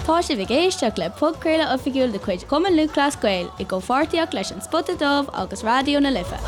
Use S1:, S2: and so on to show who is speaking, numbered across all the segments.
S1: Tá sibh ag éisteacht le podchraoladh oifigiúil de chuid Chumann Lúthchleas Gael i gcomhpháirtíocht leis An Spota Dubh agus Raidió na Life.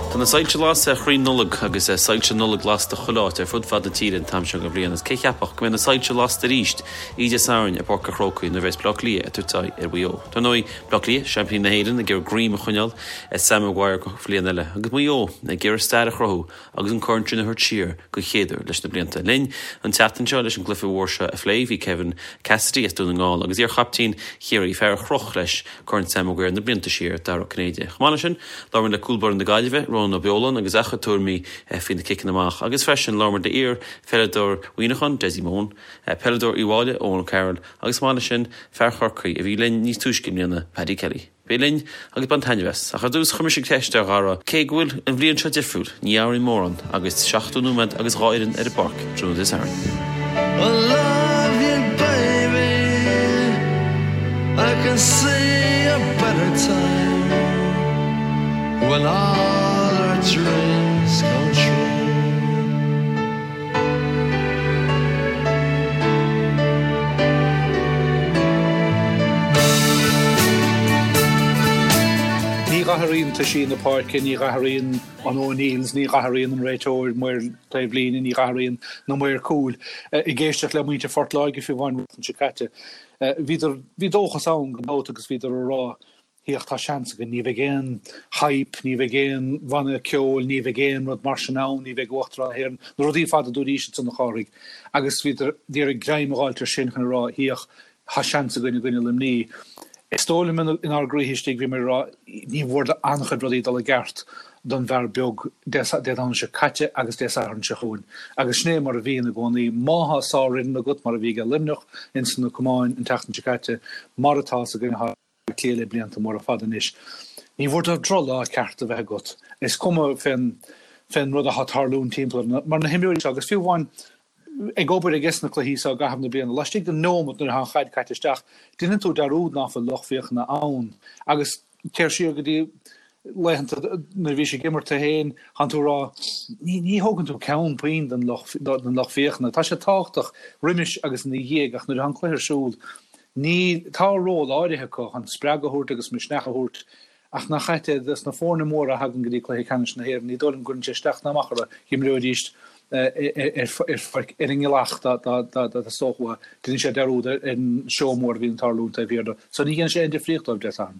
S2: Tá na soilse lasta ar chrainn Nollag agus soilse Nollag lasta chuile áit ar fud fad na tíre an t-am seo den bhliain agus cé cheapfadh go mbeidh na soilse lasta arís oíche Dé Sathairn i bPáirc an Chrócaigh nuair a bheas Baile Átha Cliath ag tabhairt aghaidh ar Mhaigh Eo. Dar ndóigh, Baile Átha Cliath, seaimpíní na hÉireann, ag iarraidh greim a choinneáil ar Sam Maguire don bhliain eile agus Maigh Eo ag iarraidh stair a chruthú agus an corn sin a thabhairt siar den chéad uair leis na blianta. Linn an tseachtain seo leis an gcluiche mhór seo a phlé bhí Kevin Cassidy as Dún na nGall agus iar-chaptaen Chiarraí, fear a chroch leis Corn Sam Maguire na blianta siar, Dara Ó Cinnéide. Chomh maith leis sin, labhair muid le cúl báire na Gaillimhe, Rónán Ó Beoláin agus a chuid tuairimí faoi na ciceanna amach agus freisin labhair muid le iar-pheileadóir Mhuineacháin, Dessie Mone, peileadóir Uíbh Fhailí, Eoin O'Carroll agus chomh maith leis sin, fear Chorcaí a bhí linn níos túisce i mbliana, Paddy Kelly. Bí linn agus bain taitneamh as. Ach ar dtús, chuir mise ceist ar Dhara, cé go bhfuil an bhliain seo difriúil, ní athraíonn mórán agus 70 nóiméad agus 2 fhoireann ar an bpáirc tráthnóna Dé Sathairn.
S3: I love you baby I can see a better time When all our dreams come true.
S4: Ní dh'athraíonn toisí na páirce, ní dh'athraíonn an O'Neills, ní dh'athraíonn an réiteoir, maor taobhlíne, ní dh'athraíonn na maoir cúil. Ag éisteacht le muintir Phort Láirge fiú amháin an tseachtain seo caite, bhíodar, bhí dóchas ann gan dabht agus bhíodar ag rá, Féach, tá seans againn, ní bheidh aon hype, ní bheidh aon bhanna ceoil, ní bheidh aon rud mar sin ann, ní bheidh Uachtarán na hÉireann, na rudaí ar fad a dúraís ansan a Chárthaigh. Agus bhíodar ag iarraidh greim a dh'fháilt ar sin chun a rá, féach, tá seans againn i gcoinne Luimní. Is dóigh liom inár gcroíthe istigh bhíomar ag rá, ní mhór d'an-chuid rudaí dul i gceart don bhfear beag Dé Domhnaigh seo caite agus Dé Sathairn seo chugainn. Agus sin é mar a bhíonn i gcónaí. Má thá sárfhoireann agat, mar a bhí aige Luimneach ins na camáin an tseachtain seo caite, mar atá sa gcoinne Cliath le blianta móra fada anois. Ní mhór dóibh drochlá ceart a bheith agat. Is cuma fén fén rud atá ag tarlúint timpeall orthu, mar na himreoirí seo, agus fiú amháin ag obair ages na cluichí seo i gcaitheamh na bliana, laistigh de neomat nuair atá an chaid caite isteach, déanann tú dearúd ná fuil lucht féachana ann. Agus téir siar go dtí laethanta nuair a bhís ag imirt tú féin, thánn tú ag rá, ní, ní thógann tú ceann puinn den lucht, den lucht féachana. Tá sé tábhachtach roimis agus ina dhiaidh ach nuair atá an cluiche ar siúl, ní, tá ról áirithe acu chun spreagadh a thabhairt agus misneach a thabhairt ach nach ait é dos na foirne móra a thagann go dtí cluiche ceannais na hÉireann, ní dóigh liom go gcuireann sé isteach ná amach orthu, d'imreoidís ar pháirc ar an ngealach dá dteastódh uathu, déanann sé dearúd ar an seó mór a bhíonn ag tarlúint taobh thiar de. So ní dhéanann sé aon difríocht dóibh Dé Sathairn.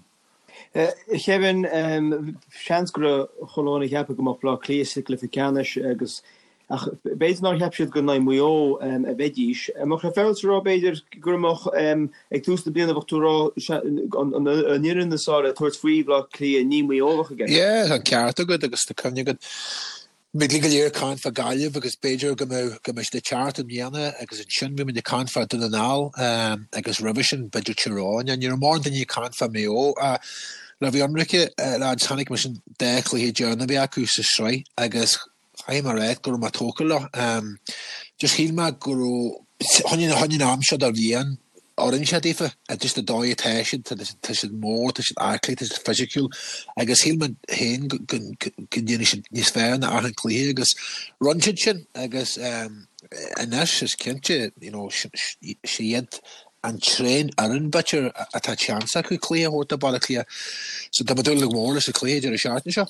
S5: Kevin, seans go raibh chuile dhuine ag ceapadh go mbeadh Bleá Cliath sa gcluiche ceannais agus ach b'fhéidir nár cheap siad gur in aghaidh Mhaigh Eo a bheidís. An mbeadh sé féaráilte a rá b'fhéidir go mbeadh ag tús na bliana bheadh tú ag rá an fhoireann is fearr le tabhairt faoi Bhleá Cliath ní Maigh Eo a bheadh i gceist.
S6: Yeah, tá an ceart agat agus tá cuimhne agat Bhí go leor ag caint fá Gaillimh agus b'fhéidir go mbeadh go mbeadh siad ag teacht i mbliana agus ansin bhí muid ag caint fá Dún na nGall agus roimhe sin b'fhéidir Tír Eoghain. Ní raibh mórán daoine ag caint fá Maigh Eo. Le bheith ionraice, lads, chonaic mise an dá chluiche deireanach a bhí acu sa sraith agus caithfidh mé a rá go raibh mé tógtha leo. Just shíl mé go raibh, chun an am seo de bhliain, oireann sé daofa, just an dóigh atá siad, tá siad mór, tá siad aclaí, tá siad fisiciúil agus shíl mé féin go ndéanfaidh siad níos fearr ná achan cluiche agus rinne siad sin agus anois is cinnte, you know, sé iad an t-aon fhoireann b'fhéidir atá seans acu cluiche a thabhairt do Baile Átha Cliath. So tá mé ag dúil go mór leis an cluiche deireadh seachtaine seo.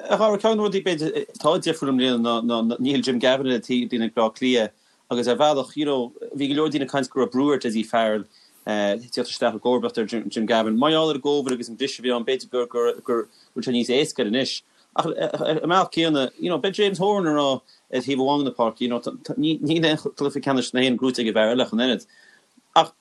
S2: A Dhara, ceann de na rudaí b'fhéidir atá difriúil i mbliana ná níl Jim Gavin ar an taobhlíne ag Bleá Cliath Agus ar bhealach, you know, bhí go leor daoine ag caint go raibh brú ar Dessie Farrell tíocht isteach i gcomharbacht ar Jim Gavin. Mar gheall ar an gCovid agus an briseadh a bhí ann, b'fhéidir gur, gur, gur bhfuil sé níos éasca air anois. Ach ar an mbealach céanna, you know, beidh James Horan ag rá ar thaobh amháin den pháirc, you know, níl aon chluiche ceannais na hÉireann gnóite ag an bhfear eile ach an oiread. Ach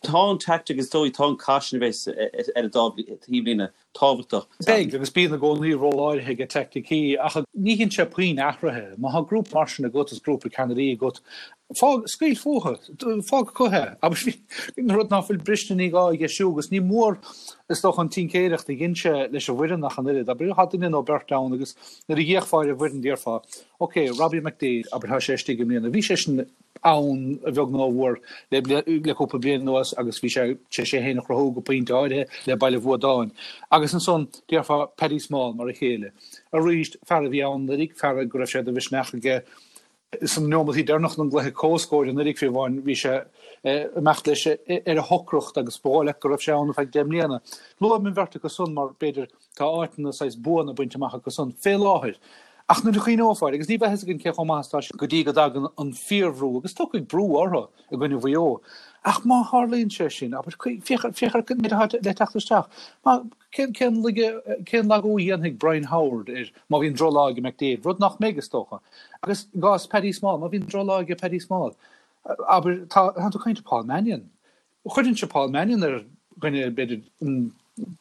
S2: tá an tactic is dóigh, tá an cath sin a bheas ar an dá thaobhlíne tábhachtach.
S4: Beidh, agus bíonn i gcónaí ról áirithe ag teaicticí, ach ní dhéanann sé puinn athraithe. Má tá grúpa mar sin agat is grúpa ceannairí agat, fág, scaoil fúthu, fág acu é. Abair, an rud ná fuil briste ní gá a dheisiú, agus ní mór, is dócha, an tincéireacht a dhein sé leis an bhfoireann ach an oiread. Abair, tá duine nó beirt ann agus nuair a d'fhéachfá ar an bhfoireann déarfá, ok, Robbie McDaid, abair, tá sé istigh i mbliana. Bhí sé sin ann a bheag nó a mhór le cúpla bliain anuas agus bhí sé tar éis é féin a chruthú go pointe áirithe le Baile Bhuadáin. Agus ansan, déarfá Paddy Small mar a chéile. Arís, fear a bhí ann anuraidh, fear go raibh sé de mhisneach aige. Sna neomataí deireanacha den gcluiche comhscóir anuraidh fiú amháin, bhí sé ag imeacht leis ar a shocracht agus ba dhóigh leat go raibh sé ann ar feadh 10 mbliana. Luaim an bheirt acu san mar, b'fhéidir, tá áiteanna saghas buana bainte amach acu san fé láthair. Ach nuair a chuimhneofá air, agus ní bheidh fhios againn cé chomh maith is atá siad go dtí go dtagann an fíorbhrú, agus tiocfaidh brú orthu i gcoinne Mhaigh Eo. Ach má tharlaíonn sé sin, abair, féach ar an méid atá le teacht isteach. Má, cén, cén laige, cén lagú a dhéanfaidh Brian Howard ar, má bhíonn drochlá ag McDaid, rud nach mbeidh, is dócha. Agus i gcás Paddy Small, má bhíonn drochlá ag Paddy Small, abair, tá, tá tú ag caint ar Paul Mannion. Chuirfinnse Paul Mannion ar dhuine, b'fhéidir,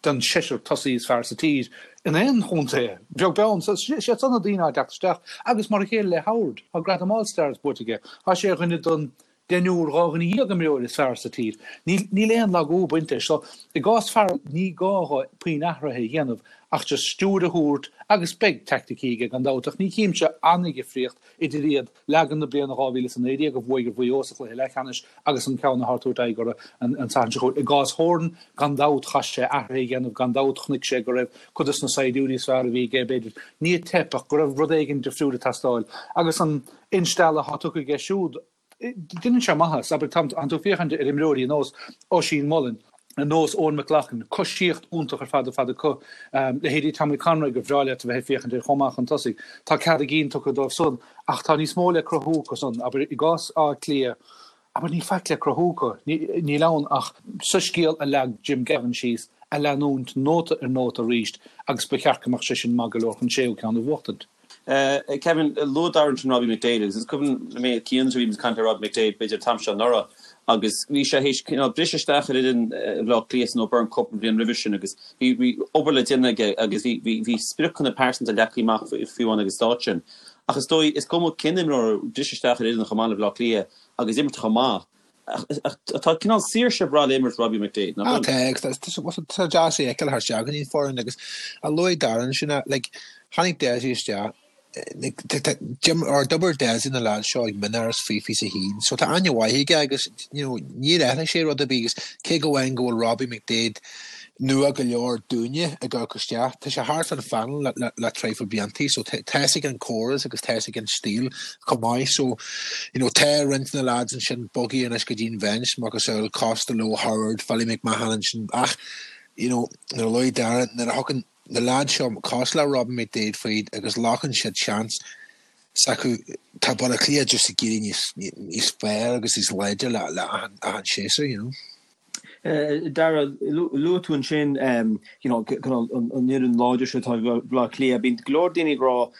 S4: den seisear tosaí is fearr sa tír in aon chontae, beag beann. So, siad san na daoine atá ag teacht isteach. Agus mar a chéile le Howard, tá gradam All Stars buaite aige. Tá sé ar dhuine den deichniúr, 12 dhuine imreoir is fearr sa tír. Níl aon lagú ag baint leis. So, i gcás Farrell, ní gá dhó puinn athraithe a dhéanamh ach just stiúir a thabhairt agus beidh teaicticí aige gan dabht ach ní chímse an-dhifríocht idir iad Leagan na bliana 2019 a bhuaigh ar Mhaigh Eo sa chluiche leathcheannais agus an ceann atá ag tabhairt aghaidh orthu an Satharn seo chugainn. I gcás Horan, gan dabht, chaith sé athruithe a dhéanamh, gan dabht chonaic sé go raibh cuid dos na saighdiúirí is fearr a bhí aige, b'fhéidir, ní ag teip ach go raibh rud éigin difriúil ag teastáil. Agus an instealladh atá tugtha aige siúd, deineann sé maitheas. Abair, tá tú ag féachaint ar imreoirí ar nós Oisín Mullin, ar nós Eoin McLaughlin, coisíocht iontach ar fad ar fad acu. Leithéidí Tommy Conroy gur bhreá leat a bheith ag féachaint air chomh maith chun tosaigh. Tá cead a gcinn tugtha dóibh san ach tá níos mó le cruthú acu san. Abair, i gcás Átha Cliath, abair, níl faic le cruthú acu. Níl ann ach soiscéal a leag Jim Gavin síos a leanúint nóta ar nóta arís agus ba cheart go mbeadh sé sin maith go leor chun séú ceann a bhuachtaint.
S2: Kevin, luaigh Darragh ansin Robbie McDaid agus is cuimhin liom mé cian a bhí ag caint le Robbie McDaid b'fhéidir an t-am seo anuraidh agus bhí sé théis cineál briseadh isteach ar fhoireann Bhaile Átha Cliath san O'Byrne Cup an bhliain roimhe sin agus bhí bhí obair le déanamh aige agus bhí bhí bhí spriocanna pearsanta leagtha amach fiú amháin ag an stáid sin. Ach is dóigh is cuma cén imreoir briseadh isteach ar fhoireann chomh maith le Baile Átha Cliath agus imirt chomh maith Ach tá cineál saoirse breá le imirt Robbie McDaid,
S6: nach bhfuil? Tá, agus tá sé deas é a fheiceáil thar isteach go dtí an foireann agus a luaigh Darren sin, like, tháinig Dessie isteach, like, or d'oibir Dessie na lads seo ag mionáras faoi 21, so tá aithne mhaith aige agus, you know, níor athraigh sé rud ar bith agus cé go amháin go bhfuil Robbie McDaid nua go leor dúinne ag amharc isteach. Tá sé thart fán phainéal le le traidhfil bliantaí so tá fhios aige an córas agus tá fhios aige an stíl chomh maith so you know tá roinnt de na lads ansin bogtha anois go dtí an bhinse macasamhail Costello, Howard, Philly McMahon ansin ach you know nuair a luaigh Darren nuair a thugann na lads seo cosúil le Robbie McDaid faoi agus glacann siad seans s'acu tá Baile Átha Cliath just ag éirí níos níos fearr agus níos láidre le le achan achan séasúr you know.
S5: Darragh, luaigh tú ansin you know an fhoireann láidir seo atá ag Baile Átha Cliath. Bíonn go leor daoine ag rá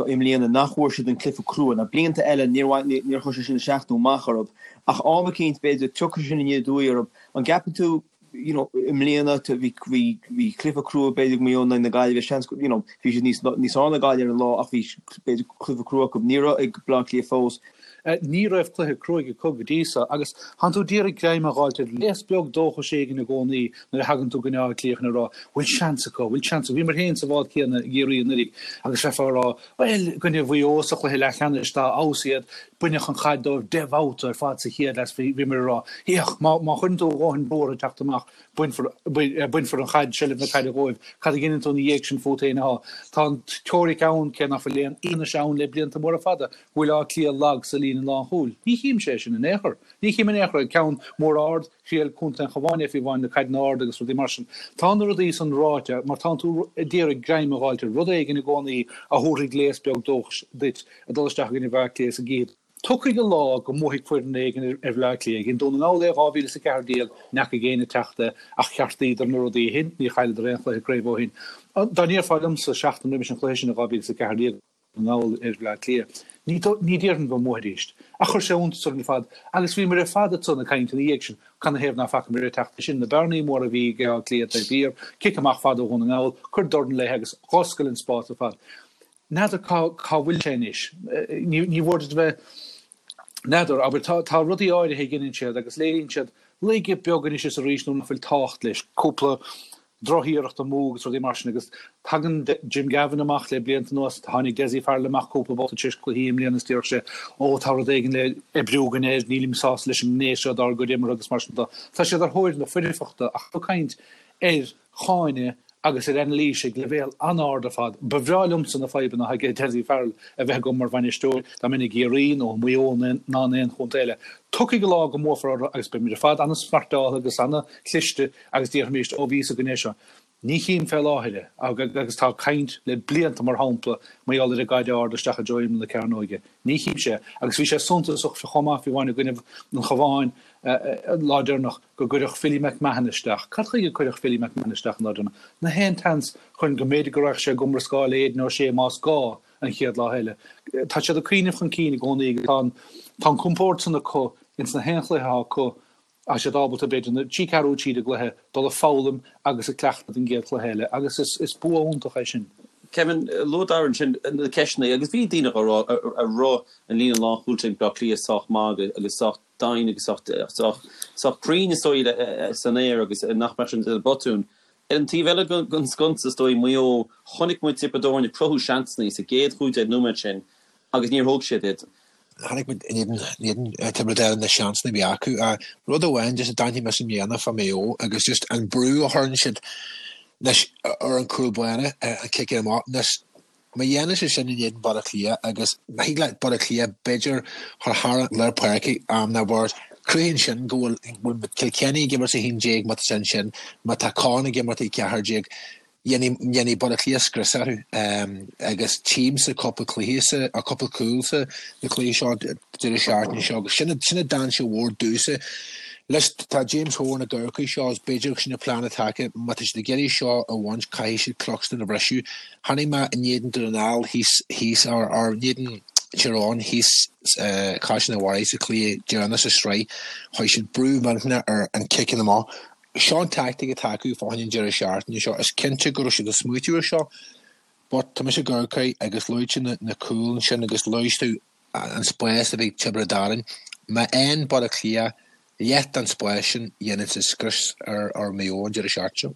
S5: i mbliana nach bhfuair siad an cluiche crua. Now blianta eile níor níor chuir sé sin isteach nó amach orthu. Ach am eicínt b'fhéidir tiocfaidh sin aniar aduaidh orthu. An gceapann tú you know i mbliana bhí bhí bhí cluiche crua b'fhéidir ag Maigh Eo in aghaidh na Gaillimhe seans you know bhí siad níos níos fearr ná Gaillimh ar an lá ach bhí b'fhéidir cluiche crua acu. Ní raibh ag Baile Átha Cliath fós.
S4: Ní raibh cluiche cruaidh acu go dtí so agus thánn tú d'iarraidh greim a dh'fháilt ar léas beag dóchais éigin i gcónaí nuair a thagann tú go Áth Cliath chun a rá bhfuil seans acu, bhfuil seans acu. Bhíomar féin sa bhád céanna i gCiarraí anuraidh agus bheifeá a rá bhuel, i gcoinne Mhaigh Eo sa chluiche leathcheannais dá fheabhas iad, baineadh an chaid dóibh 10 mbabhta ar fad sa chéad leath. Bhíomar a rá féach, má chuireann tú a dhóthain brú orthu teacht amach, bainfear bainfear an chaid, seilbh na caide dhóibh. Cad a dheineann tú ina dhiaidh sin fút féin atá. Tá an teoiric ann, cé nach bhfuil aon fhianaise ann le blianta móra fada, go bhfuil Áth Cliath lag sa líne lánchúil. Ní chímse é sin in aon chor. Ní chím in aon chor é. Ceann mór ard, thriail contae an Chabháin é fiú amháin na caideanna arda agus rudaí mar sin. Tá na rudaí san ráite mar tánn tú ag iarraidh greim a dh'fháilt ar rud éigin i gcónaí a thabharfaidh léas beag dóchais duit ag dul isteach i gcoinne Bhaile Átha Cliath sa gcífidh Tiocfaidh an lá go mbuafaidh foireann éigin ar Bhaile Átha Cliath. Dhein Dún na nGall é 2014, n'fheacaigh éinne ag teacht é, ach cheartaíodar na rudaí ó shin, níor chailleadar aon chluiche craoibhe ó shin. Dá ndéarfá liomsa seachtain roimis an chluiche sin i 2014, na nGall ar Bhaile Átha Cliath, ní déarfainn go mbuafaidís. Ach chuir sé iontas orainn ar fad, agus bhíomar ar fad ansan ag caint ina dhiaidh sin, canathaobh ná facamar ag teacht é sin, na bearnaí móra a bhí ag Áth Cliath taobh thiar, cic amach fada ó Dhún na nGall, cuir dorn léi agus dh'oscail an spás ar fad. N'fheadar cá cá bhfuil sé anois. Ní ní mhór duit a bheith, n'fheadar, abair, tá tá rudaí áirithe a dheineann siad agus léiríonn siad laige beag anois is arís nuair nach bhfuil tábhacht leis, cúpla drochiarracht amú agus rudaí mar sin agus tagann Jim Gavin amach le blianta anuas, tháinig Dessie Farrell amach cúpla babhta tar éis cluichí i mbliana is déarfadh sé ó tá rud éigin le oibriú againn air, nílim sásta leis an ngné seo dár gcuid imeartha agus mar sin de. Tá siad ar thóir na foirfeachta ach ag caint ar cháineadh. agus ar anailís ag leibhéal an-ard ar fad. Ba bhreá liomsa na fadhbanna atá ag Dessie Farrell a bheith agam mar bhainisteoir, dá mbeinn i gCiarraí nó i Maigh Eo ná in aon chontae eile. Tiocfaidh an lá go mbuafar orthu agus beimid ar fad an-smartáilte agus an-chliste agus déarfaimís, 'Ó, bhí fhios againn é seo'. Ní chím fé láthair é, agus tá caint le blianta, mar shampla, mar gheall ar an gcaid ard isteach i dtreo imeall na cearnóige. Ní chímse é. Agus bhí sé suntasach chomh maith, fiú amháin i gcoinnibh an Chabháin an lá deireanach, go gcuireadh Philly McMahon isteach. Cad chuige a cuireadh Philly McMahon isteach an lá deireanach? Nach é an tseans chun go mb'fhéidir go raghadh sé i gcomrascáil le Aidan O'Shea más gá an chéad lá eile. Tá siad ag cuimhneamh chun cinn i gcónaí agus tá an tá an compord san acu ins na haon chluiche atá acu. Tá siad ábalta, b'fhéidir, na trí ceathrú tríd an gcluiche, dul ag foghlaim agus ag cleachtadh don gcéad chluiche eile agus is bua iontach é sin.
S2: Kevin, luaigh Darragh ansin na ceisteanna agus bhí daoine á rá an raibh an líne lánchúil ag Bleá Cliath sách maith agus sách daingean agus sách cruinn is dóigh san aer agus nach mbeadh sin ina botún. Ar an taobh eile den sconsa is dóigh, Maigh Eo, chonaic muid Tiobraid Árann ag cruthú seansanna sa gcéad 15 nóiméad sin agus níor thóg siad iad.
S6: Chonaic muid in éadan Tiobraid Árann na seansanna a bhí acu. Rud amháin just a d'aithnigh mise i mbliana fá Maigh Eo agus just an brú a chuireann siad anois ar an cúl báire, an cic amach. Anois má dhéanann siad sin in éadan Baile Átha Cliath agus má thig le Baile Átha Cliath b'fhéidir chur thar an lár páirce am ná bord, cruthaíonn sin go bhfuil Kilkenny ag imirt 11 má tá sin sin, má tá Con ag imirt 14, Dhéanfaidh Baile Átha Cliath scrios orthu agus tchímse cúpla cluiche sa, or cúpla cúl sa na cluichí seo deireadh seachtaine seo agus sin sin dainséar mhór domhsa. Leis tá James Horan ag amharc air seo agus b'fhéidir sin an plean atá acu má tá siad ag iarraidh seo a bhaint caithfidh siad Cluxton a bhriseadh. Chonaic mé in éadan Dún na nGall thíos thíos or or in éadan Tyrone thíos Caisleán an Bharraigh sa chluiche deireanach sa sraith chuir siad brú millteanach ar an ciceanna amach Seo an tactic atá acu fá choinne an deireadh seachtaine seo. Is cinnte go raibh siad ag smaoitiú ar seo but tá mise ag amharc air agus luaigh tú na cúil ansin agus luaigh tú an spás a bhí ag Tiobraid Árann. Má fhaigheann Baile Átha Cliath leath den spás sin dhéanfaidh siad scrios ar Maigh Eo an deireadh seachtaine seo.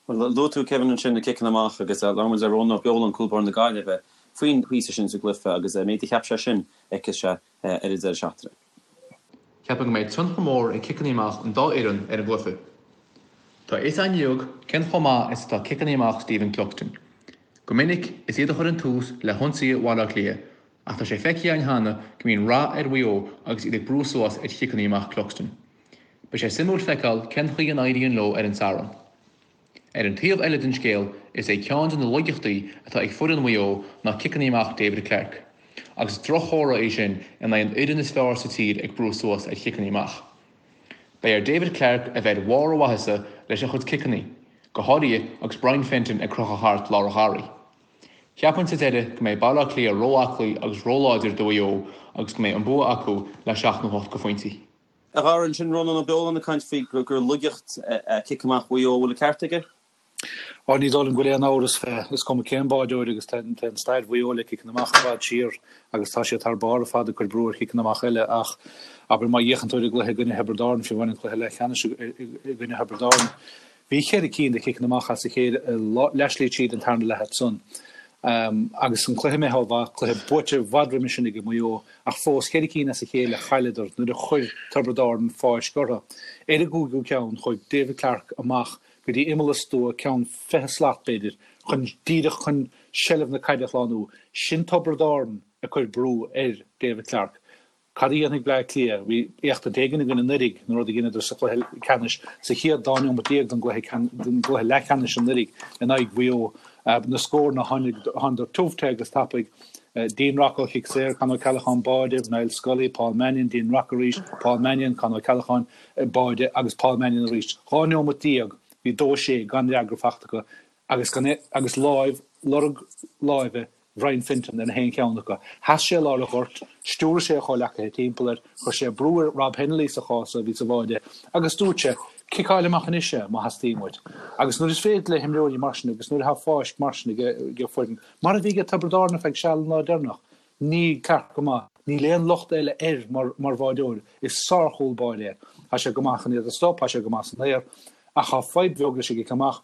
S2: Bhuel, luaigh tú, Kevin, ansin na ciceanna amach agus labhair muid le Rónán Ó Beoláin, cúl báire na Gaillimhe, faoin phíosa sin sa gcluiche agus an méid a cheap sé sin a fheicfeas sé ar an deireadh seachtaine.
S7: Ceapaim go mbeidh tionchar mór ag ciceanna amach an dá fhoireann ar an gcluiche. Tá a fhios againn uilig cén chomh maith is atá ciceanna amach Stephen Cluxton. Go minic, is iad a chuireann tús le hionsaithe Bhaile Átha Cliath, ach tá sé feicthe againn cheana go mbíonn rath ar Mhaigh Eo agus iad ag brú suas ar chiceanna amach Cluxton. Beidh sé suimiúil feiceáil cén chaoi a n-éiríonn leo ar an Satharn. Ar an taobh eile den scéal, is é ceann de na laigeachtaí atá ag foireann Mhaigh Eo ná ciceanna amach David Clarke, agus is drochthóradh é sin in aghaidh an fhoireann is fearr sa tír ag brú suas ar chiceanna amach. Beidh ar David Clarke a bheith ar bharr a mhaitheasa leis a chuid ciceanna, go háirithe agus Brian Fenton ag crochadh thart lár an gharraí. Cheapfainn sa deireadh go mbeidh Baile Átha Cliath ró-aclaí agus róláidir do Mhaigh Eo agus go mbeidh an bua acu le seacht nó hocht de phointí.
S2: A Dhara, ansin Rónán Ó Beoláin ag caint faoi gur laigeacht é cic amach Mhaigh Eo, an bhfuil an ceart aige?
S4: Á, ní dóigh liom go bhfuil aon amhras fé. Is cuma cén báideoir agus téann stair Mhaigh Eo le ciceanna amach i bhfad siar agus tá siad thar barr ar fad ag cur brú ar chiceanna amach eile ach abair má fhéachann tú ar an gcluiche i gcoinne Thiobraid Árann, fiú amháin an cluiche leathcheannais i gcoinne Thiobraid Árann, Bhí cheithre cinn de chiceanna amach as a chéile i leathshlí tríd an tarna leath ansan. Agus an cluiche imithe ó mhaith, cluiche buaite i bhfad roimhe sin ag Maigh Eo, ach fós cheithre cinn as a chéile a chailleadar nuair a chuir Tiobraid Árann fáisc orthu. Ar an gcúigiú ceann, chuaigh David Clarke amach go dtí imeall an stua, ceann 20 slat b'fhéidir, chun díreach chun seilbh na caide a shlánú. Sin Tiobraid Árann ag cur brú ar David Clarke. Cad a dhéanfaidh Bleá Cliath? Bhí éachtaint éigin againn anuraidh, an rud a dheineadar sa chluiche ceannais, sa chéad dá neomat déag den gcluiche leathcheannais anuraidh in aghaidh Mhaigh Eo. Na scóranna, thánadar tiubh te agus tapaidh. Dean Rock ó chic saor, Con O'Callaghan báide, Niall Scully, Paul Mannion, Dean Rock arís, Paul Mannion, Con O'Callaghan báide agus Paul Mannion arís. 12 neomat, bhí 2-6 gan fhreagra fachta acu agus gan agus láimh, lorg láimhe Brian Fenton ar na haon cheann acu. Sheas sé i lár an ghoirt, stiúraigh sé a chomhleacaithe timpeall air, chuir sé brú ar Rob Hennelly sa chás so, a bhí sa bháide, agus dúirt sé, Ciceáil amach anois é, má theastaíonn uait. Agus nuair is féidir le himreoirí mar sin agus nuair atá fáisc mar sin ag foireann, mar a bhí ag Tiobraid Árann ar feadh seal an lá deireanach, níl Clarke go maith, níl aon locht eile air mar mar bháideoir, is sár-chúl báire é. Tá sé go maith chun iad a stop, tá sé go maith san aer, ach tá fadhb bheag leis an gcic amach.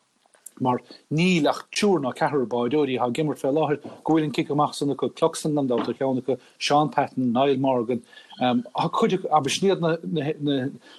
S4: Mar níl ach triúr ná ceathrar báireoirí atá ag imirt fé láthair go bhfuil an cic amach san acu, Cluxton gan dabht ar cheann acu, Shaun Patton, Niall Morgan, tá cuid acu, abair, sin iad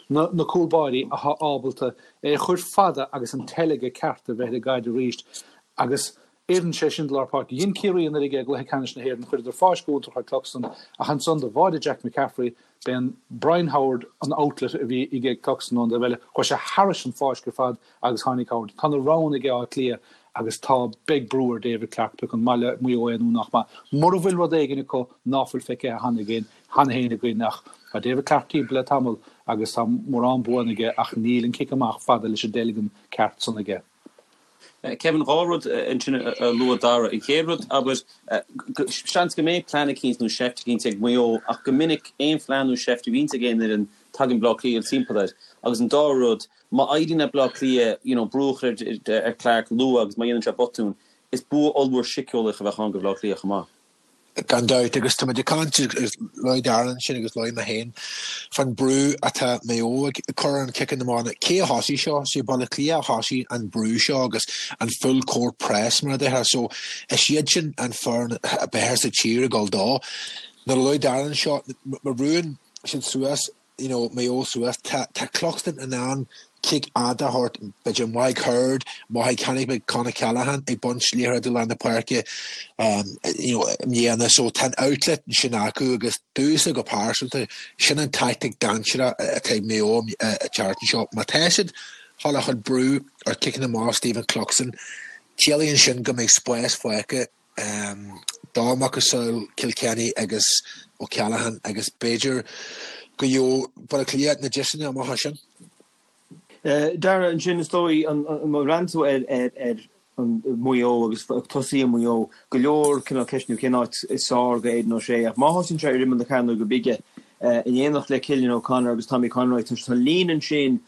S4: na cúl báirí atá ábalta é a chur fada agus an teilge ceart a bheith ar an gcaid arís agus oireann sé sin do lár páirce. Dhein Ciarraí anuraidh é i gcluiche ceannais na hÉireann, chuireadar fáisc iontach ar Cluxton ach ansan do bháidigh Jack McCaffrey, b'é Brian Howard an outlet a bhí aige Cluxton ón dtaobh eile, chuaigh sé thairis an fáisc ar fad agus tháinig Howard. Tá na roghanna ag Áth Cliath agus tá, beidh brú ar David Clarke pé acu an maith le Maigh Eo é nó nach maith. Mura bhfuil rud éigin acu ná fuil feicthe cheana againn, cheana féin againn ach tá David Clarke timpeall le tamall agus tá mórán buanna aige ach níl an cic amach fada leis an dteilgean ceart san aige.
S2: Kevin, 2 rud ansin a luaigh Dara. An chéad rud, abair, seans go mbeidh plean eicínt nó seift eicínt ag Maigh Eo ach go minic aon phlean nó seift a bhíonns ag aon fhoireann tagann Bleá Cliath timpeall air. Agus an dara rud, má éiríonn le Bleá Cliath you know brú a chur ar Clarke luath agus má dhéanann sé botún, is bua ollmhór síceolaíoch a bheadh ann do Bhleá Cliath chomh maith.
S6: Gan dabht, agus tá muid ag caint, agus luaigh Darren ansin agus luaigh mé féin, fán brú atá Maigh Eo ag cur ar an ciceanna amach. Cé a thosaigh seo? Sé Baile Átha Cliath a thosaigh an brú seo agus an full court press mar a déarfá. So is iad sin an foireann ab fhearr sa tír ag dul dó. Nuair a luaigh Darren seo, má bhrúnn siad suas, you know, Maigh Eo suas, tá, tá Cluxton in ann cic fhada a thabhairt, b'fhéidir Mike Hurd, má chonaic mé Con O'Callaghan ag baint liathróid i lár na páirce, um, you know, i mbliana, so tá an outlet sin acu agus domhsa go pearsanta, sin an tactic dainséarach atá ag Maigh Eo an tseachtain seo. Má tá siad chun a chur brú ar ciceanna amach Stephen Cluxton, ciallaíonn sin go mbeidh spás fágtha do macasamhail Kilkenny agus O'Callaghan agus b'fhéidir go gheobhadh Baile Átha Cliath na deiseanna amach as sin.
S5: Dara, ansin is dóigh, má bhreathnaíonn tú ar Mhaigh Eo agus tosaithe Mhaigh Eo, go leor cineál ceisteanna cén áit is fearr do Aidan O'Shea ach má thosaíonn sé ar imeall na cearnóige bige in éineacht le Cillian O'Connor agus Tommy Conroy, tá líne ansin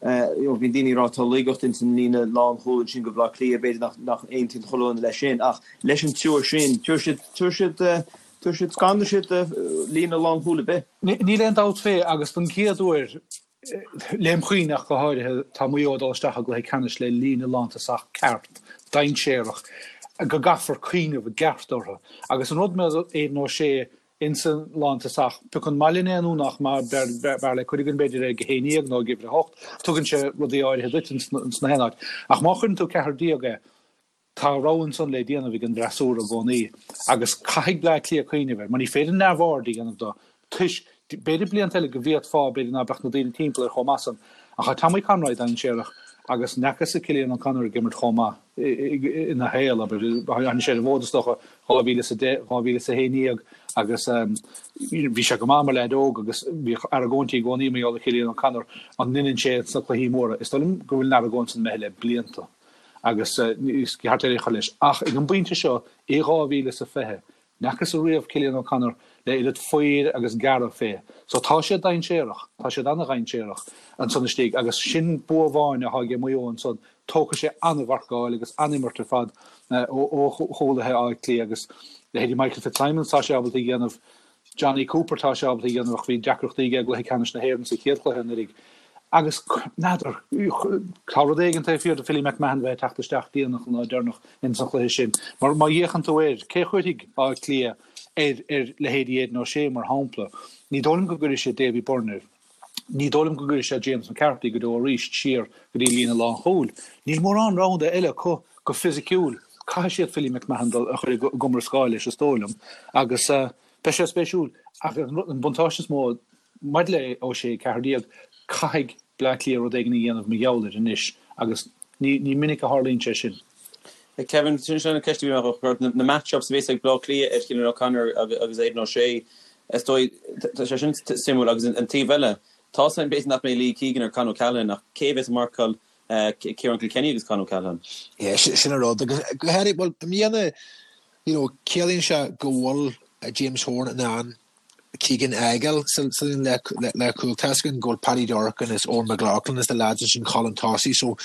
S5: Bíonn daoine ag rá tá laigeacht ins an líne lánchúil ansin do Bhaile Átha Cliath, b'fhéidir nach nach aontaíonn chuile dhuine leis sin ach leis an triúr sin, tabharfaidh siad, tabharfaidh siad, tabharfaidh siad, scanróidh siad líne lánchúil ar bith.
S4: Níl aon dabht fé agus don gcéad uair, lem chuimhne ach go háirithe, tá Maigh Eo ag dul isteach i gcluiche ceannais le líne lántosach ceart, dainséarach, go gcaithfear cuimhneamh i gceart orthu. Agus an rud maidir le Aidan O'Shea, Insa lántosach, pé acu an maith linn é nó nach maith, b'fhearr le cuid againn b'fhéidir é ag 11 nó ag uimhir 8, tugann sé rudaí áirithe duit ins na haon áit. Ach má chuireann tú 14 é, tá rogha ansan le déanamh ag an bhfreasúra i gcónaí agus caithfidh Bleá Cliath cuimhneamh air, mar ní féidir neamhaird a dhéanamh do, toisc, b'fhéidir blianta eile go bhféadfá, b'fhéidir ná beadh na daoine timpeall air chomh maith san, ach tá Tommy Conroy dainséarach agus n'fheacas-sa Cillian O'Connor ag imirt chomh maith. ina shaol, abair. Tháinig sé ar an bhfód, is dócha, 2010, 2011 agus bhí sé go maith mar leaid óg agus bhíodh argóintí i gcónaí mar gheall ar Chillian O'Connor, an ndeineann sé sna cluichí móra. Is dóigh liom go bhfuil an argóint san imithe le blianta agus is ceart é a chur leis. Ach ag an bpointe seo, i 2020, N'fheacas-sa riamh Cillian O'Connor le oiread faobhair agus gearradh fé. So tá sé dainséarach, tá siad ana-dhainséarach ansan istigh agus sin bua amháin athá aige Maigh Eo ansan, tógfaidh sé ana-mharcáil agus an-imirt ar fad ó chúlaithe Átha Cliath agus leithéidí Michael Fitzsimons tá sé ábalta a dhéanamh, Jonny Cooper tá sé ábalta a dhéanamh ach bhí deacrachtaí aige i gcluiche ceannais na hÉireann sa chéad chluiche anuraidh. Agus, n'fheadar, tá rud éigin taobh thiar de Philly McMahon bheith ag teacht isteach déanach an lá deireanach ins an chluiche sin. Mar má fhéachann tú air, cé a chuirfidh Áth Cliath ar ar leithéidí Aidan O'Shea, mar shampla? Ní dóigh liom go gcuirfidh siad Davy Byrne air. Ní dóigh liom go gcuirfidh siad James McCarthy go deo arís siar go dtí líne lánchúil. Níl mórán roghanna eile acu go fisiciúil. Caithfidh siad Philly McMahon dul a chur i gcomrascáil leis, is dóigh liom. Agus beidh sé spéisiúil. Ach an buntáiste is mó Maidir le O'Shea 14, caithfidh Bleá Cliath rud éigin a dhéanamh mar gheall air anois agus ní minic a tharlaíonn sé sin.
S2: Kevin, sin an ceist a bhí mé a chur ort, na match-ups a bhéas ag Bleá Cliath ar Chillian O'Connor agus Aidan O'Shea, is dóigh, tá sé sin suimiúil agus an taobh eile, tá a fhios againn b'fhéidir nach mbeidh Lee Keegan ar Con O'Callaghan ach cé a bhéas ag marcáil Ciarán Kilkenny agus Con O'Callaghan?
S6: Yeah, sin an rud agus go háirithe, bhuel, i mbliana, you know, ciallaíonn sé go bhfuil James Horan in ann Keegan a fhágáil sa líne leathchúil. Tá a fhios againn go bhfuil Paddy Durcan is Eoghan McLaughlin is na lads ansin chun tosaigh so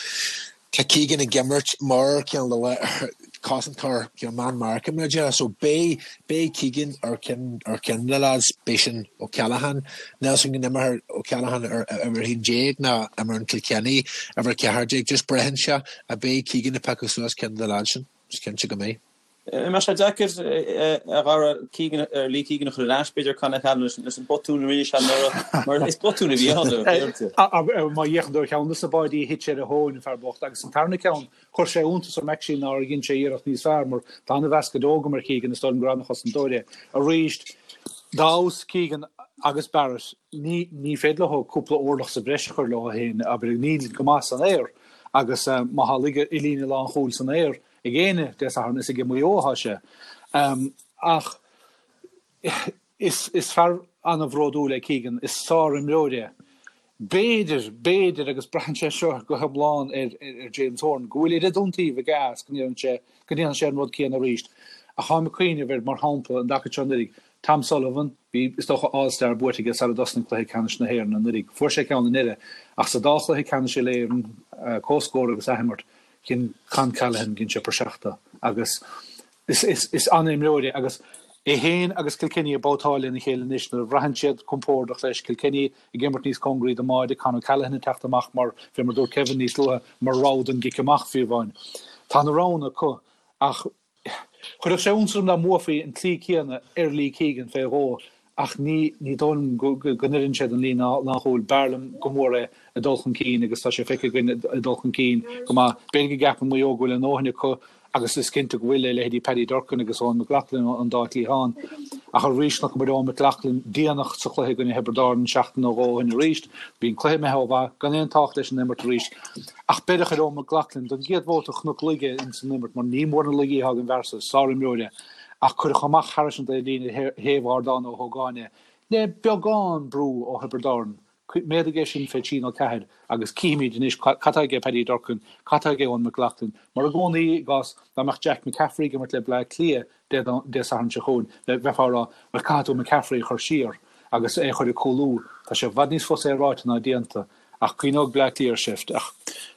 S6: tá Keegan ag imirt mar Ceann Luath. Cosantóir you know man marking mar a déarfá so beidh beidh Keegan ar ceann ar ceann de na lads beidh sin O'Callaghan níl 's agam go n-imreoidh O'Callaghan ar uimhir 11 nó imreoidh Kilkenny uimhir 14 just braitheann sé ach beidh Keegan ag piocadh suas ceann de na lads sin is cinnte go mbeidh.
S2: An mbeidh sé deacair a Dhara Keegan ar Lee Keegan a chur ar ais b'fhéidir Con O'Callaghan leis an botún a rinne sé anuraidh mar is botún a bhí ann.
S4: Má fhéachann tú ar cheann de na báidí a thit sé ar a thóin an fear bocht agus an tarna ceann Chuir sé iontas orm actually nár dhein sé iarracht níos fearr mar tá an-mheas go deo agam ar Keegan, is dóigh liom gur an-chosantóir é. Arís, dá fheabhas Keegan agus Barrett, ní ní féidir leo cúpla orlach sa bhreis a chur leo féin, abair, níl go maith san aer agus má tá laige i líne lánchúil san aer ag éinne Dé Sathairn is ag Maigh Eo atá sé. Ach Is fear an-bhródúil é Keegan, is sár-imreoir é. B'fhéidir, b'fhéidir, agus braitheann sé seo go hiomlán ar James Horan, go bhfuil oiread iontaoibh aige as go ndéanann sé, go ndéanfaidh sé an rud céanna arís. Ach táim ag cuimhneamh ar, mar shampla, an dtaca seo anuraidh, Tom Sullivan, bhí, is dócha, All Star buaite aige sara dtosnaigh cluiche ceannais na hÉireann anuraidh. Fuair sé ceann i ndeireadh, ach sa dá chluiche ceannais Uile-Éireann, comhscór agus athimirt, dhein Con Callaghan, dhein sé praiseach de agus Is an-imreoir é agus é féin agus Kilkenny ag babhtáil lena chéile anois nuair a bhraitheann siad compordach leis, Kilkenny ag imirt níos cóngaraí don mbáide, Con O'Callaghan ag teacht amach mar, fé mar a dúirt Kevin níos luaithe, mar rogha don gcic amach fiú amháin. Tá na roghanna acu ach chuirfeadh sé iontas orm dá mbuafaí an tslí céanna ar Lee Keegan fé dhó Ach ní ní dóigh liom go n-oireann sé don líne lánchúil. B'fhearr liom go mór é ag dul chun cinn agus tá sé feicthe againn ag dul chun cinn go maith. B'fhéidir go gceapann Maigh Eo go bhfuil a ndóthain acu agus is cinnte go bhfuil le leithéidí Paddy Durcan agus Eoghan McLaughlin an dá chliathán. Ach arís chonaic muid Eoghan McLaughlin déanach sa chluiche i gcoinne Thiobraid Árann seachtain nó dhó ó shin arís. Bhí an cluiche imithe ó mhaith, gan aon tábhacht leis an imirt arís. Ach beireadh ar Eoghan McLaughlin don gcéad bhabhta chonac laige ins an imirt mar ní mór na laigí atá ag an bhfear so, sárimreoir é. ach cuireadh amach thairis an dtaobhlíne ar thaobh Ardán Ó hÓgáin é, le beagán brú ó Thiobraid Árann. Méadaigh é sin fé thrí nó ceathair agus cífimid anois cad tá aige Paddy Durcan, cad tá aige Eoin McLaughlin. Mar i gcónaí i gcás dá mbeadh Jack McCaffrey ag imirt le Bleá Cliath Dé Sathairn seo chugainn, bheifeá ag rá, bhuel caithfidh tú McCaffrey a chur siar agus é a chur ag cúlú. Tá sé i bhfad níos fusa é ráite ná déanta. Ach cuimhneoidh Bleá Cliath ar seift. Ach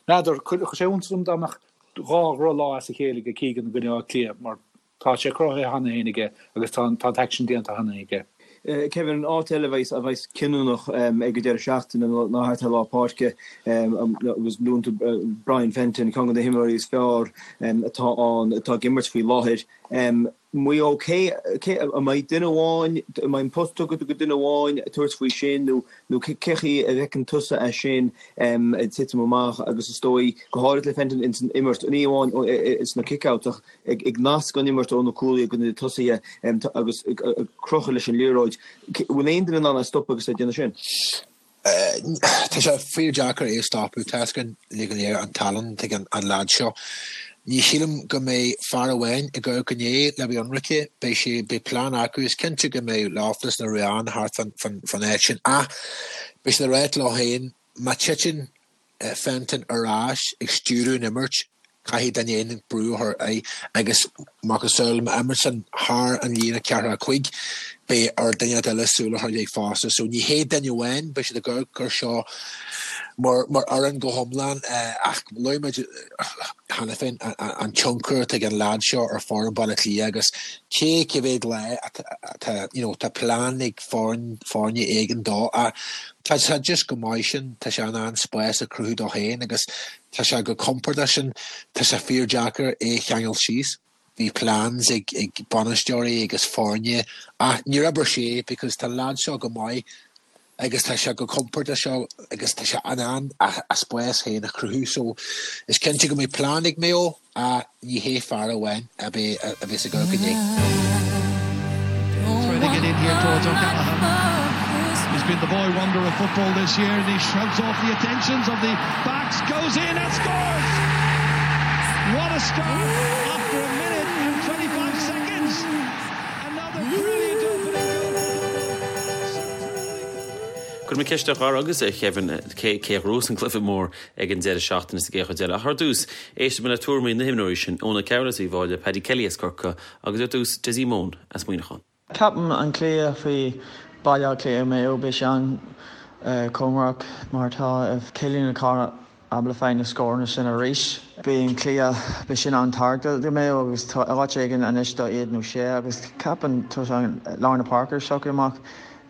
S4: n'fheadar, chuirfeadh sé iontas orm dá mbeadh dhá dhrochlá as a chéile aige Keegan i gcoinne Átha Cliath mar tá sé cruthaithe cheana féin aige agus tá an t-aicsean déanta cheana aige.
S5: Kevin, an áit eile a bheas a bheas cinniúnach ag an deireadh seachtaine ná thart ar lár páirce agus luann tú Brian Fenton, ceann de na himreoirí is fearr atá ann, atá ag imirt faoi láthair. Maigh Eo, cé, cé, an mbeidh duine amháin, an mbeidh an post tugtha do dhuine amháin tabhairt faoi sin nó, nó cé chaoi a bhfeiceann tusa é sin ag titim amach agus is dóigh, go háirithe le Fenton ins an imirt, ní amháin sna kick-outs ach ag, ag nasc an imirt ó na cúlaithe go na tosaithe agus ag crochadh leis an liathróid. Bhfuil aon duine in ann é a stopadh agus é ag déanamh sin?
S6: Tá sé fíor-deacair é a stopadh. Tá 'fhios againn uilig go léir an tallann atá ag an leaid seo. Ní shílim go mbeidh fear amháin ag amharc in air le bheith ionraice. Beidh sé, beidh plean acu. Is cinnte go mbeidh Loughnane nó Ruane thart fán áit sin ach beidh siad ag ráit leo féin má titeann Fenton ar ais ag stiúradh an imirt, caithfidh duine éigin brú a chur air agus macasamhail má imríonn san thar an líne ceathracha cuig, beidh ar duine eile súil a chur air fosta. So ní hé duine amháin, beidh siad ag amharc ar seo mar mar fhoireann go hiomlán ach luaigh muid cheana féin an tionchar atá ag an leaid seo ar foireann Baile Átha Cliath agus cé cé mhéad lá atá you know tá plean ag foireann foirne éigin dó ach Tá sé just chomh maith sin, tá sé in ann spás a chruthú dó féin agus tá sé chomh compordach sin, tá sé fíor-deacair é a cheangal síos. Bhí plans ag ag bainisteoirí agus foirne ach níor oibir sé because tá an leaid seo go maith agus tá sé chomh compordach seo agus tá sé in ann a spás féin a chruthú so is cinnte go mbeidh plean ag Maigh Eo. Ach ní hé fear amháin a bheas ag amharc inné.
S3: Trying to get in here towards O'Callaghan. He's been the boy wonder of football this year and he shrugs off the attentions of the backs, goes in and scores! What a start after a minute and 25 seconds! Another brilliant opening goal for Dublin.
S2: Cuirfidh mé ceist ar Dhara agus ar Kevin cé a ghnóthós an cluiche mór ag an deireadh seachtaine sa gcéad chuid eile. Ach ar dtús, éistfidh muid le tuairimí na himreoirí sin, Eoin Ó Cearúil as Uíbh Fhailí, Paddy Kelly as Corcaigh agus ar dtús, Dessie Mone as Muineachán.
S8: Ceapaim an cluiche faoi Baile Átha Cliath Maigh Eo beidh sé an-chóngarach mar tá Cillian O'Connor. ábalta fáil na scóranna sin arís. Beidh an cluiche, beidh sin an-tábhachtach do Mayo agus tá áit éigin anois do Aidan O'Shea agus ceapaim tá lár na páirce ag socrú amach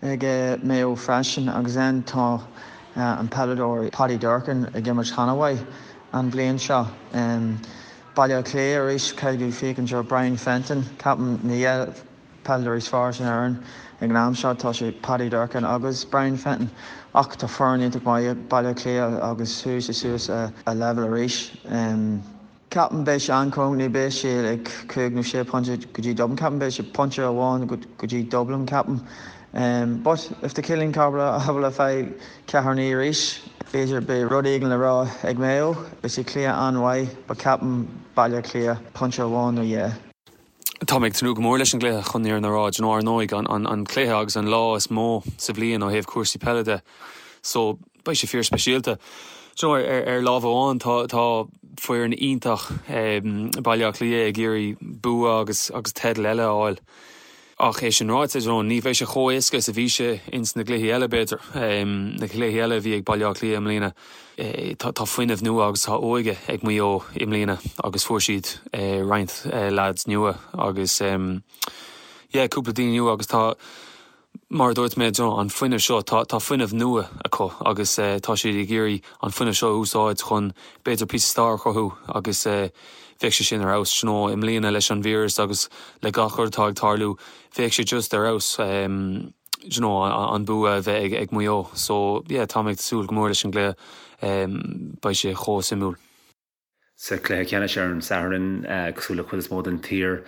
S8: ag Mayo freisin agus then tá an peileadóir Paddy Durcan ag imirt an-mhaith an bhliain seo. Baile Átha Cliath arís, caithfidh tú féachaint ar Brian Fenton, ceapaim na dhá peileadóir is fearr san fhoireann ag an am seo, tá sé Paddy Durcan agus Brian Fenton ach tá foireann iontach maith ag Baile Átha Cliath agus chuaigh sé suas a leibhéal arís. Ceapaim beidh sé an-chúng, ní beidh sé ag cúig nó sé pointe go dtí Dublin, ceapaim beidh sé pointe amháin go dtí Dublin ceapaim. But if tá Cillian Carver ábalta fáil ceathair naoi arís, b'fhéidir beidh rud éigin le rá ag Mayo. Beidh sé cluiche an-mhaith but ceapaim Baile Átha Cliath pointe amháin nó dhá.
S2: Tá mé ag tnúth go mór leis an gcluiche chun an fhírinne a rá. Do you know, ar ndóigh, an cluiche agus an lá is mó sa bhliain ó thaobh cúrsaí peile de. So, beidh sé fíor speisialta. Do you know, ar, ar lámh amháin tá, tá foireann iontach Baile Átha Cliath ag iarraidh bua agus, agus teideal eile a fháil. Ach é sin ráite, do you know, ní bheidh sé chomh éasca is a bhí sé ins na gcluichí eile, b'fhéidir, na cluichí eile a bhí ag Baile Átha Cliath i mbliana. Tá fuinneamh nua agus tá óige ag Maigh Eo i mbliana agus fuair siad roinnt lads nua agus yeah, cúpla daoine nua agus tá, mar a dúirt mé, do you know, an fuinneamh seo, tá tá fuinneamh nua acu agus tá siad ag iarraidh an fuinneamh seo a úsáid chun b'fhéidir píosa stair a chruthú agus bheadh sé sin ar fheabhas. Do you know, i mbliana leis an víreas agus le gach rud atá ag tarlú, bheadh sé just ar fheabhas do you know, an bua a bheith ag Maigh Eo. So yeah, tá mé ag súil go mór leis an gcluiche, beidh sé chomh suimiúil.
S7: Sa chluiche ceannais ar an Satharn, cosúil le cuid is mó den tír,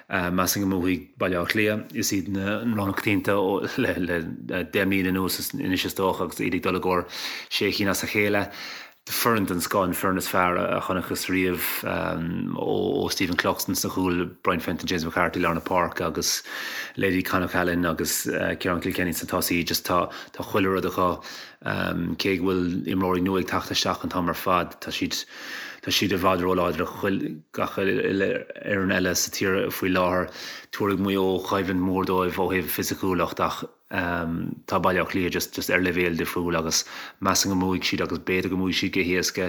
S7: measaim go mbuafaidh Baile Átha Cliath. Is iad an rogha na coitianta le 10 mbliana anuas anois is dócha agus iad ag dul i gcomhair sé chinn as a chéile. Foireann den scoth, an foireann is fearr a chonacthas riamh ó Stephen Cluxton sna cúil, Brian Fenton, James McCarthy lár na páirce agus leithéidí Con O'Callaghan agus Ciarán Kilkenny sna tosaí. Just tá tá chuile rud acu. Cé go bhfuil imreoirí nua ag teacht isteach an t-am ar fad, tá siad tá siad i bhfad róláidir do gach uile fhoireann eile sa tír faoi láthair. Tabharfaidh Maigh Eo coimhlint mhór dóibh ó thaobh fisiciúlacht ach Tá Baile Átha Cliath just just ar leibhéal difriúil agus measaim go mbuafaidh siad agus b'fhéidir go mbuafaidh siad go héasca,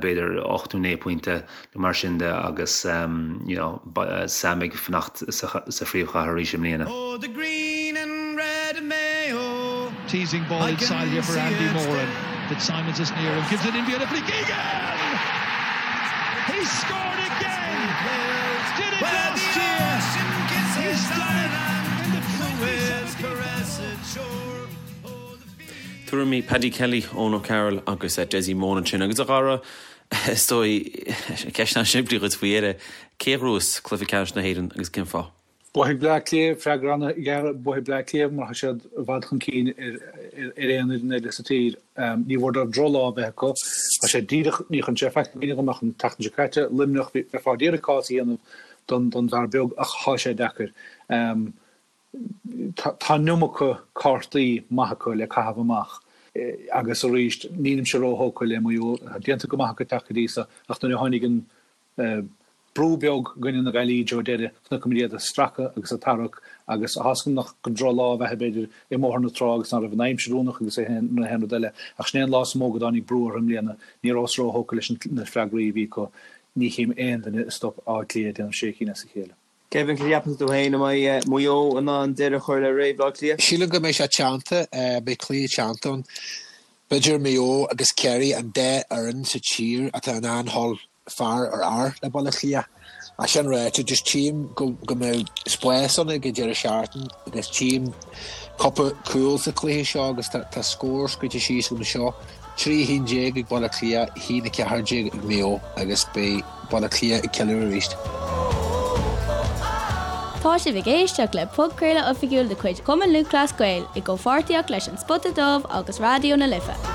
S7: b'fhéidir 8 nó 9 pointe nó mar sin de agus you know Sam ag fanacht sa sa phríomhchathair arís i mbliana.
S3: Oh the green and red of Mayo Teasing ball inside here for Andy Moran. Fitzsimons is near and gives it in beautifully. Keegan! He's scored again! Did it last year! He's done it in the
S2: Tuairimí Paddy Kelly, Eoin O'Carroll agus Dessie Moran ansin. Agus a Dhara, is dóigh, ceist an-simplí dhuit faoi dheireadh, cé a ghnóthós cluiche ceannais na hÉireann agus cén fáth?
S4: Buafaidh Bleá Cliath, freagra an-ghearr, buafaidh Bleá Cliath mar tá siad i bhfad chun cinn ar aon fhoireann eile sa tír. Ní mhór dóibh drochlá a bheith acu. Tá sé díreach, ní chuireann sé faic i gcuimhne dhom ach an tseachtain seo caite, Luimneach, bheifeá ag iarraidh cás a dhéanamh don bhfear beag ach tá sé deacair. Tá an iomarca cártaí maith acu le caitheamh amach agus arís nílimse róthógtha le Maigh Eo. Tá déanta go maith acu teacht go dtí seo ach nuair a tháinig an Brú beag i gcoinne na Gaillimhe ó deireadh, chonaic muid iad ag stracadh agus ag tarrac agus tá a fhios agam nach gur drochlá a bheadh b'fhéidir i mBóthar na Trá agus ná raibh an aimsir oiriúnach agus na haon rud eile ach sin é an lá is mó go dtáinig brú orthu i mbliana. Ní rabhas róthógtha leis na freagraí a bhí acu. Ní chím aon duine a stop Áth Cliath ag déanamh sé cinn as a chéile.
S5: Kevin, cad a cheapann tú féin, an mbeidh Maigh Eo in ann deireadh a chur le ré Bhaile Átha Cliath?
S6: Sílim go mbeidh sé teannta, beidh cluiche teannta ann. B'fhéidir Maigh Eo agus Ciarraí an dá fhoireann sa tír atá in ann dhul fear ar fhear le Baile Átha Cliath. Ach sin ráite, just tchím go go mbeidh spás ann ag an deireadh seachtaine agus tchím cúpla cúl sa chluiche seo agus tá tá scór scríte síos agam anseo, 3 1 ag Baile Átha Cliath, 1 14 ag Maigh Eo agus beidh Baile Átha Cliath ag ceiliúradh arís.
S1: Tá sibh ag éisteacht le podchraoladh oifigiúil de chuid Chumann Lúthchleas Gael i gcomhpháirtíocht leis An Spota Dubh agus Raidió na Life.